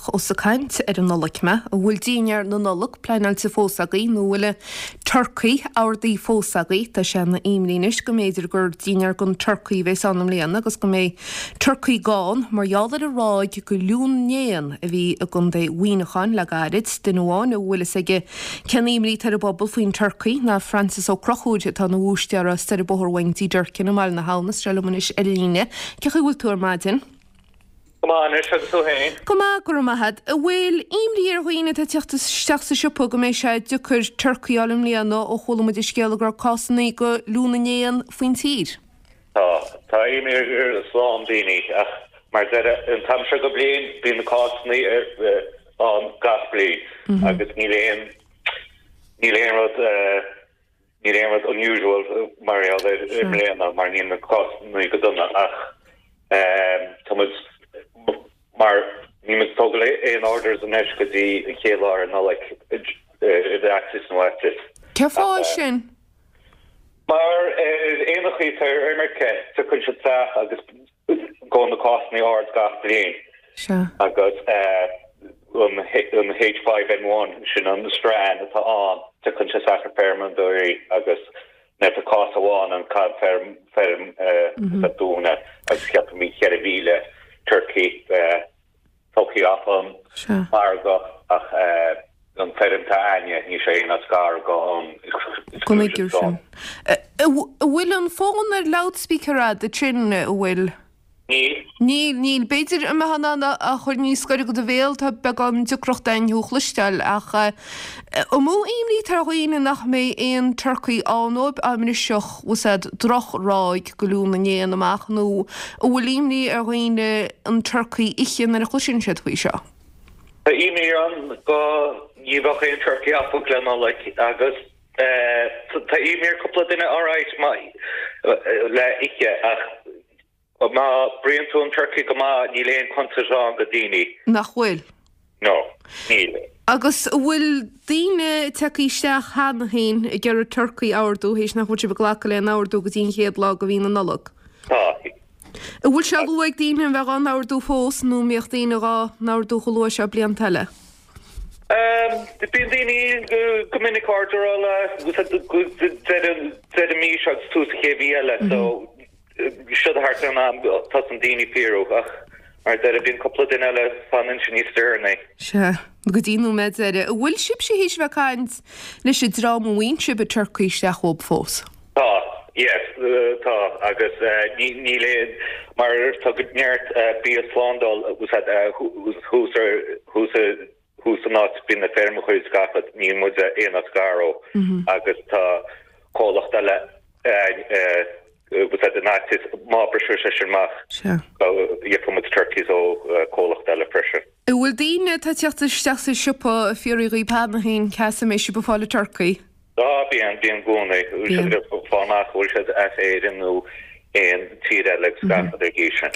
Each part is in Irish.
Ach ós ag caint ar an Nollaig mé, an bhfuil dinnéar na Nollag pleanáilte fós agaibh nó an bhfuil an turcaí ordaithe fós agaibh? Tá sé ina imní anois go mb'fhéidir gur dinnéar gan turcaí a bheas ann i mbliana agus go mbeidh turcaí gann mar gheall ar an ráig de fhliú na n-éan a bhí i gContae Mhuineacháin le gairid. Duine amháin a bhfuil fhios aige cén imní atá ar an bpobal faoin turcaí ná Francis Ó Conchúir atá ina bhúistéara soir an bóthar uainn i dTigh Durkin i mBaile na hAbhann. Is sé liom anois ar an líne. Cén chaoi a bhfuil tú ar maidin? Go maith anois, agus tú féin? Go maith, go raibh maith a't. An bhfuil imní ar dhaoine atá ag teacht isteach sa siopa go mbeidh sé deacair turcaí a fháil i mbliana ó chuala muid an scéala go raibh cásanna de fhliú na n-éan faoin tír? Tá. Tá imní ar a lán daoine ach mar a deir, an t-am seo go bliain bíonn na cásanna ann gach bliain agus níl aon, níl aon rud, Níl aon rud unusual mar gheall air i mbliana mar níl na cásanna go dona ach tá muid mar níl muid ag tógáil aon orders anois go dtí an chéad lá ar Nollaig i bhfaitíos nó fhaitíos. Cén fáth sin? Mar ar éanachaí atá ar imirce tiocfaidh siad isteach agus Gabhann na cásanna ard gach bliain. Sea. Agus an H5N1, sin an strain atá ann, tiocfaidh sé isteach ar feirmeoirí agus nuair atá cás amháin ann caithfidh feirm a dúnadh agus ceapaim 4,000 turcaí tógtha as an margadh ach an feirm atá a'ainne, níl sé aon áit gar go an exclusion zone. An bhfuil an fón ar loudspeaker a'd ansin, an bhfuil? Níl. Níl, níl. B'fhéidir an mbeifeá in ann é a chur níos gaire go do bhéal, tá beagán deacracht a'inn thú a chloisteáil ach an mó imní atá ar dhaoine nach mbeidh aon turcaí ann dóibh dá mbrisfeadh, bhfuil 's a'd, droch-ráig de fhliú na n-éan amach nó an bhfuil imní ar dhaoine an turcaí a ithe nuair a chloiseann siad faoi seo? Tá imní ann go ní bheadh aon turcaí acu le Nollaig agus tá imní ar cúpla duine alright le ithe ach má bruíonn tú an turcaí go maith níl aon contúirt ann go daoine. Nach bhfuil? No, níl. Agus an bhfuil daoine tagtha isteach cheana féin ag iarraidh turcaí a ordú théis nach bhfuil sibh ag glacadh le haon ordú go dtí an chéad lá de mhí na Nollag? Tá. An bhfuil sé luath ag daoine a bheith dhá n-ordú fós nó an mbíodh daoine dhá n-ordú chomh luath seo blianta eile? Bíonn daoine go minic orderáil deireadh mí seo agus tús an chéad mhí eile so Seo thart ar an am tosaíonn daoine ag fiafraí ach mar a deirim bíonn cúpla duine eile fanann siad níos deireanaí. Sea, go dtí an nóiméad deiridh. An bhfuil sibhse théis a bheith ag caint leis an dream a bhfaigheann sibh an turcaí isteach uathub fós? Tá, yes, tá agus níl aon, mar tá go neart bia slándáil thuas ar, thuas thuas san áit bíonn na feirmeacha is gach rud, níl muid aon áit gar ó agus tá comhlacht eile in áit is má briseadh sé sin amach gheobhaidh muid turkeys ó comhlacht eile freisin. An bhfuil daoine atá ag teacht isteach sa siopa ag fiafraí dhaoib cheana féin cá as a mbeidh sibh ag fáil an turcaí? Á, bíonn, bíonn i gcónaí. Bíonn. Siad ag fáil amach an bhfuil siad as Éirinn nó aon tír eile agus gach rud ar gcís sin.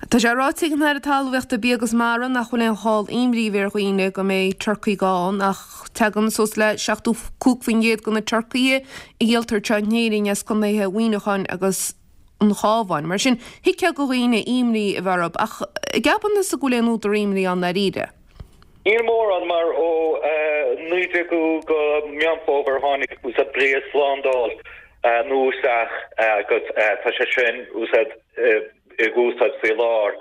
Tá sé ráite ag an Aire Talmhaíochta, Bia agus Mara nach bhfuil aon chall imní a bheith ar dhaoine go mbeidh turcaí gann ach tagann suas le 75% de na turcaithe a dhíoltar anseo in Éirinn as contaetha Mhuineacháin agus an Chabháin. Mar sin, thuigfeá do dhaoine imní a bheith orthu ach an gceapann tusa go bhfuil aon údar imní ann ndáiríre? Níl mórán, mar ó 19ú go Meán Fómhair tháinig bia slándáil nua isteach agus tá sé sin ag úsáid faoi láthair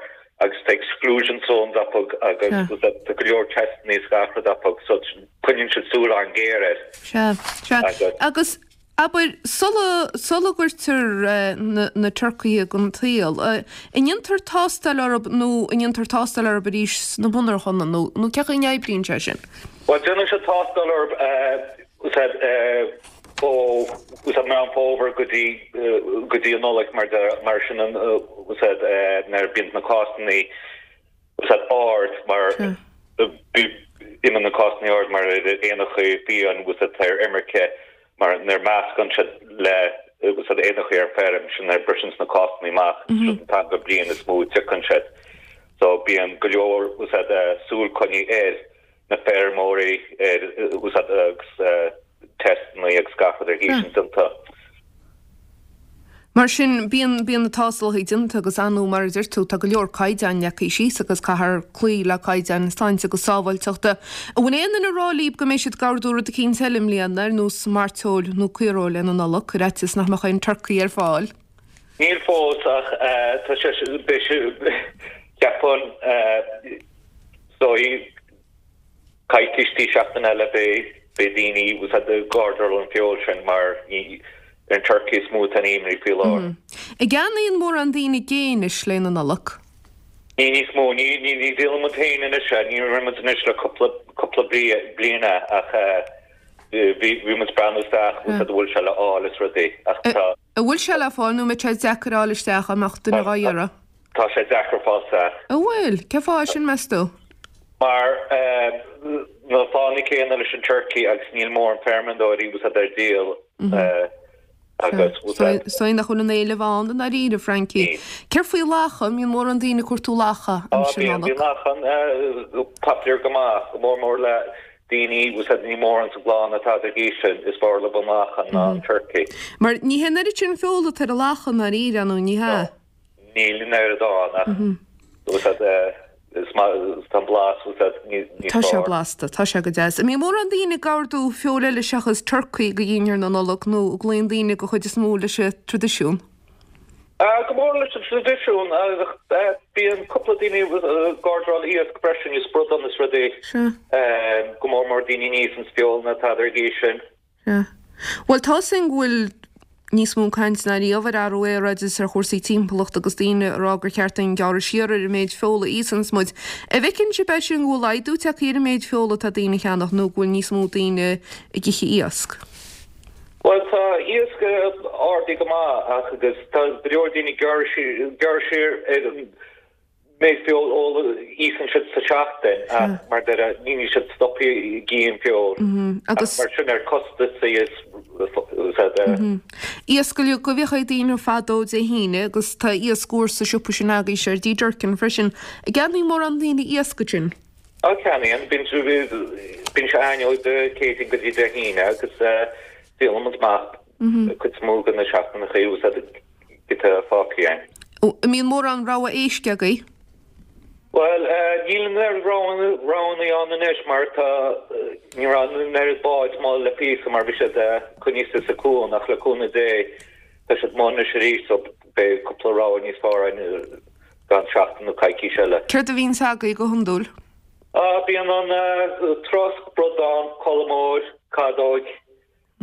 agus tá exclusion zones acu agus tá go leor testanna is gach rud acu so coinníonn siad súil an-ghéar air. Sea, sea. Agus Abair, sula, sula gcuirtear na, na turcaithe den tsaol, an ndéantar tástáil orthu nó an ndéantar tástáil orthu arís sna monarchana nó, nó cén chaoi a n-oibríonn sé sin? Bhuel, déanann siad tástáil orthu ó, ó Meán Fómhair go dtí, go dtí an Nollaig mar, mar sin an, nuair a bíonn na cásanna úsáid ard mar imíonn na cásanna ard mar éanacha fiáin úsáid ar imirce mar nuair meascann siad le úsáid éanacha ar feirm sin nuair briseann na cásanna amach sin an t-am den bhliain is mó a tiocfaidh siad so bíonn go leor úsáid súil coinnithe ar na feirmeoirí ar úsáid agus testanna agus gach rud ar gcís sin déanta. Mar sin, bíonn, bíonn na tástálacha déanta agus ar ndóigh mar a deir tú, tá go leor caighdeáin leagtha síos agus caithfear cloí le caighdeáin sláinte agus sábháilteachta. An bhfuil aon duine ag rá libh go mbeidh siad ag ordú rud eicínt eile i mbliana, ar nós mairteoil nó caoireoil le na Nollag, ar fhaitíos nach mbeadh aon turcaí ar fáil? Níl fós ach tá sé, beidh sé, cheapfainn, is dóigh, coicís dtí seachtain eile beidh beidh daoine bhfuil a fhios a'd ag ordráil an feoil sin mar ní ar an turkey is mó atá an imní faoi láthair. An gceannaíonn mórán daoine gé anois le na Nollag? Ní níos mó, ní ní ní dhíolann muid féin anois é, ní rinne muid anois le cúpla cúpla bliain é ach bhí bhí muid ag breathnú isteach bhfuil a fhios a'd an bhfuil sé le fháil is rudaí ach tá An bhfuil sé le fáil nó an mbeidh sé deacair a fháil isteach dá mbeadh duine dhá iarraidh? Tá sé deacair fáil isteach. An bhfuil? Cén fáth sin, meas tú? Mar na fáthanna céanna leis an turkey agus níl mórán feirmeoirí bhfuil a fhios a'd ar díol agus bhfuil a fhios a'd. Is dóigh nach bhfuil an éileamh ann i ndáiríre, Frankie. Céard faoi lacha? An mbíonn mórán daoine ag cuartú lacha aimsir Nollag? Bíonn, bíonn lachan popular go maith, go mór mór le daoine bhfuil a fhios a'd ní mórán sa gclann atá ag aois sin, is fearr leo an lachan ná an turkey. Mar ní hé an oiread sin feola atá ar an lacha i ndáiríre, nó ní hea? Níl an oiread ann ach bhfuil a fhios a'd is maith tá an blas bhfuil a fhios a'd níos Tá sé fearr. blasta, tá sé go deas. An mbíonn mórán daoine ag ordú feoil eile seachas turcaí go dhinnéar na Nollag nó an gcloíonn daoine go chuid is mó leis an traidisiún? Go mór leis an traidisiún ach bíonn cúpla daoine ag ordráil iasc freisin, is bradán is rudaí. Sea. Go mór mór daoine níos an feoil ná tada ar an gcaoi sin. Sea. Bhuel, tá a fhios againn go bhfuil níos mó caint ná riamh ar athrú aeráide is ar chúrsaí timpeallachta agus daoine ag rá gur cheart dúinn gearradh siar ar an méid feola a íosanns muid. An bhfeiceann sibh é sin go bhfuil laghdú tagtha ar an méid feola atá daoine a cheannach nó go bhfuil níos mó daoine ag ithe iasc? Bhuel, tá iasc ardaithe go maith ach agus tá go leor daoine ag gearradh siar ar an méid feoil a íosann siad sa seachtain ach mar deir níl siad stoptha ag ithe an feoil ach mar sin ar costasaí is Iasc uilig a bhíodh ag daoine fadó Dé hAoine agus tá iasc úr sa siopa sin agaibhse ar D Durkin freisin. An gceannaíonn mórán daoine iasc ansin? Á ceannaíonn, bíonn bíonn sé againn ó Dé Céadaoin go dtí Dé hAoine agus díolann muid amach cuid is mó de na seachtaineacha úsáid giota fágtha againn. An mbíonn mórán rogha éisc agaibh? Bhuel, níl an oiread roghanna ann anois mar tá, ní raibh an oiread báid amuigh le píosa mar bhí siad coinnithe sa cuan ach le cúnamh Dé tá siad amuigh anois arís so beidh cúpla rogha níos fearr againn i gceann seachtain nó coicís eile. Céard a bhíonns agaibh go hiondúil? Á, bíonn an trosc, bradán, colmóir, cadóig.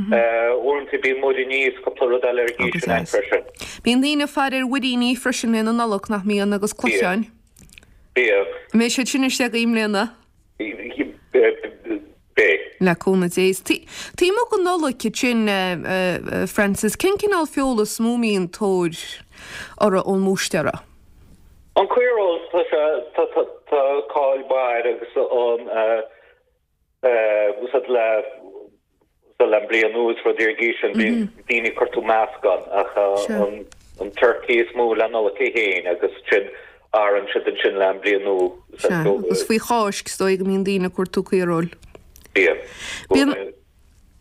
Uaireanta bíonn muiríní is cúpla rud eile ar an gcaoi sin ann freisin. Bíonn daoine ag faire ar mhuiríní freisin le na Nollag, nach mbíonn, agus cluicheáin. Bíonn. An mbeidh siad sin istigh agaibh i mbliana? Beidh. Le cúnamh Dé. Taobh amuigh den Nollaig ansin, Francis, cén cineál feola is mó a mbíonn tóir orthu ón mbúistéara? An caoireoil, tá sé, tá cáil mhaith air agus an úsáid le le an bliain nua is rudaí ar an gcaoi sin bíonn daoine ag cuartú meascán ach an turkey is mó le Nollaig é féin agus sin athraíonn siad ansin le an bliain nua. Sea, agus faoi Cháisc is dóigh go mbíonn daoine ag cuartú caoireoil. Bíonn. Bíonn.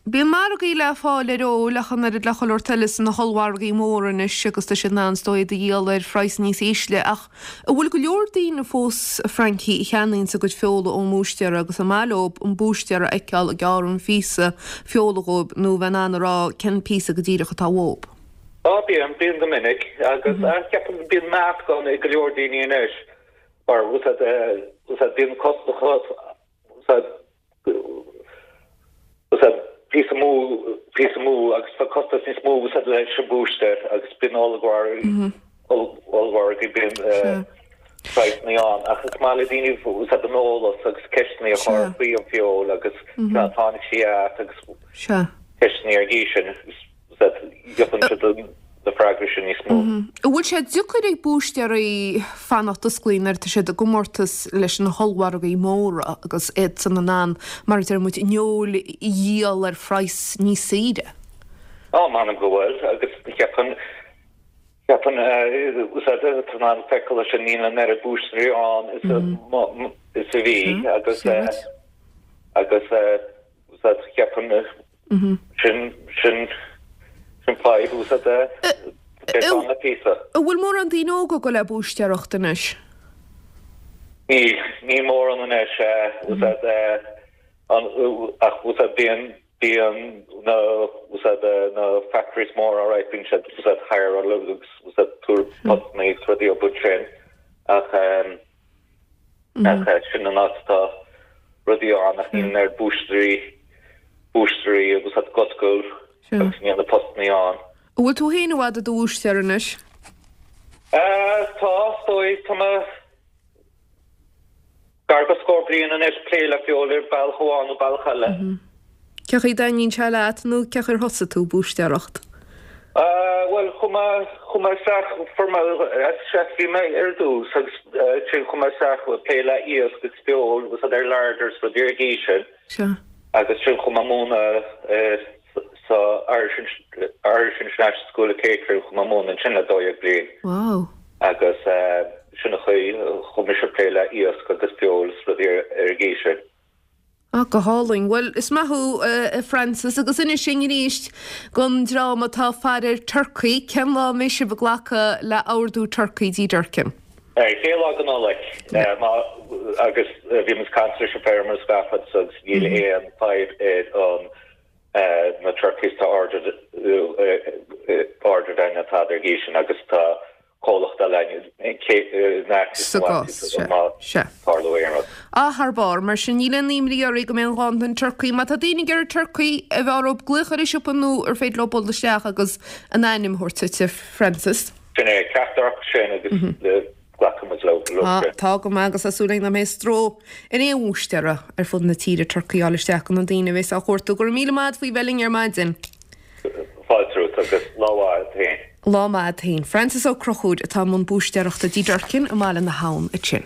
Bíonn margaí le fáil ar fheoil ach an oiread le chuile shórt eile sna hollmhargaí móra anois agus tá siad in ann is dóigh iad a dhíol ar phraghas níos ísle ach an bhfuil go leor daoine fós, a Frankie, a cheannaíonns a gcuid feola ón mbúistéara agus an maith leo an búistéara a fheiceáil ag gearradh an phíosa feola dhóibh nó bheith in ann a rá cén píosa go díreach atá uathub? Á bíonn, bíonn go minic agus ceapaim bíonn meascán ag go leor daoine anois mar bíonn costas píosa mó, píosa mó agus tá costas níos mó úsáid leis an búistéir agus bíonn ollmhargaí, ollmhargaí, bíonn praghsanna ann ach is maith le daoine úsáid an eolas agus ceisteanna a chur faoi an feoil agus cá dtáinig sí as agus ceisteanna ar an gcaoi sin. Gheobhann siad na freagraí sin níos mó. An bhfuil sé deacair ag búistéirí fanacht osclaithe nuair atá siad i gcomórtas leis na hollmhargaí móra agus iadsan in ann, mar a deir muid, an fheoil a dhíol ar phraghas níos saoire? Á, m'anam go bhfuil, agus cheapfainn, cheapfainn, úsáid, tá in ann feiceáil leis sin, níl an oiread búistéirí ann is a, is a bhí agus, agus, úsáid, cheapfainn, Sin, sin, sin fadhb úsáid. Beidh ann le píosa. An bhfuil mórán daoine óga ag dul le búistéireacht anois? Níl, níl mórán anois, bhfuil a fhios a'd, ach bhfuil a fhios a'd bíonn, bíonn na, bhfuil a fhios a'd na factories móra alright, bíonn siad, bhfuil a fhios a'd hireáil agus bhfuil a fhios a'd tabhairt postanna agus rudaí ó but sin ach ach sin an áit atá rudaí ann ach níl an oiread búistéirí, búistéirí bhfuil a fhios a'd ag oscailt agus níl na postanna ann. An bhfuil tú féin i bhfad i do bhúistéir anois? Tá, is dóigh. Tá mé gar go scór bliain anois ag plé le feoil ar bealach amháin nó bealach eile. Cén chaoi a dtaitníonn sé leat nó cén chaoi ar thosaigh tú ag búistéireacht? Bhuel, chuaigh mé, chuaigh mé isteach, fuair mé, chef bhí mé ar dtús agus ansin chuaigh mé isteach ag plé le iasc agus feoil agus ar larders rudaí ar an gcaoi sin. Sea. Agus ansin chuaigh mé ag múineadh sa Irish Irish International School of Catering chuaigh mé ag múineadh ansin le 12 bliain. Wow. Agus sin an chaoi a chuaigh mise ag plé le iasc agus feoil is rudaí ar an gcaoi sin. Ah, go hálainn. Bhuel, is maith thú, a Francis, agus inis dúinn arís don dream atá ag faire ar turcaí, cén lá a mbeidh sibh ag glacadh le ordú turcaí dTí Durkin? Chéad lá de Nollaig. Agus bhí muid ag caint leis an feirmeoir is gach rud agus níl aon fadhb ar an na turkeys tá ordered ordered againn atá ar an gcaoi sin agus tá comhlacht eile againn in aice Sa gcás, sea, má sea. tharlódh aon rud. Ah, thar barr. Mar sin, níl aon imní oraibh go mbeidh aon ghanntan turcaí. Má tá daoine ag iarraidh turcaí, an bhfearr dóibh glaoch ar an siopa nó ar féidir leo dul isteach agus a n-ainm a thabhairt duit, a Francis? Sin é, ceachtar acu sin agus glacfaidh muid leo sin. Tá go maith agus tá súil againn nach mbeidh stró ar aon bhúistéara ar fud na tíre turcaí a fháil isteach do na daoine a bheas á chuartú. Go raibh míle maith agat faoi bheith linn ar maidin. Fáilte romhat agus lá mhaith agat féin. Lá maith agat féin. Francis Ó Conchúir atá i mbun búistéireachta dTí Durkin i mBaile na hAbhann ansin.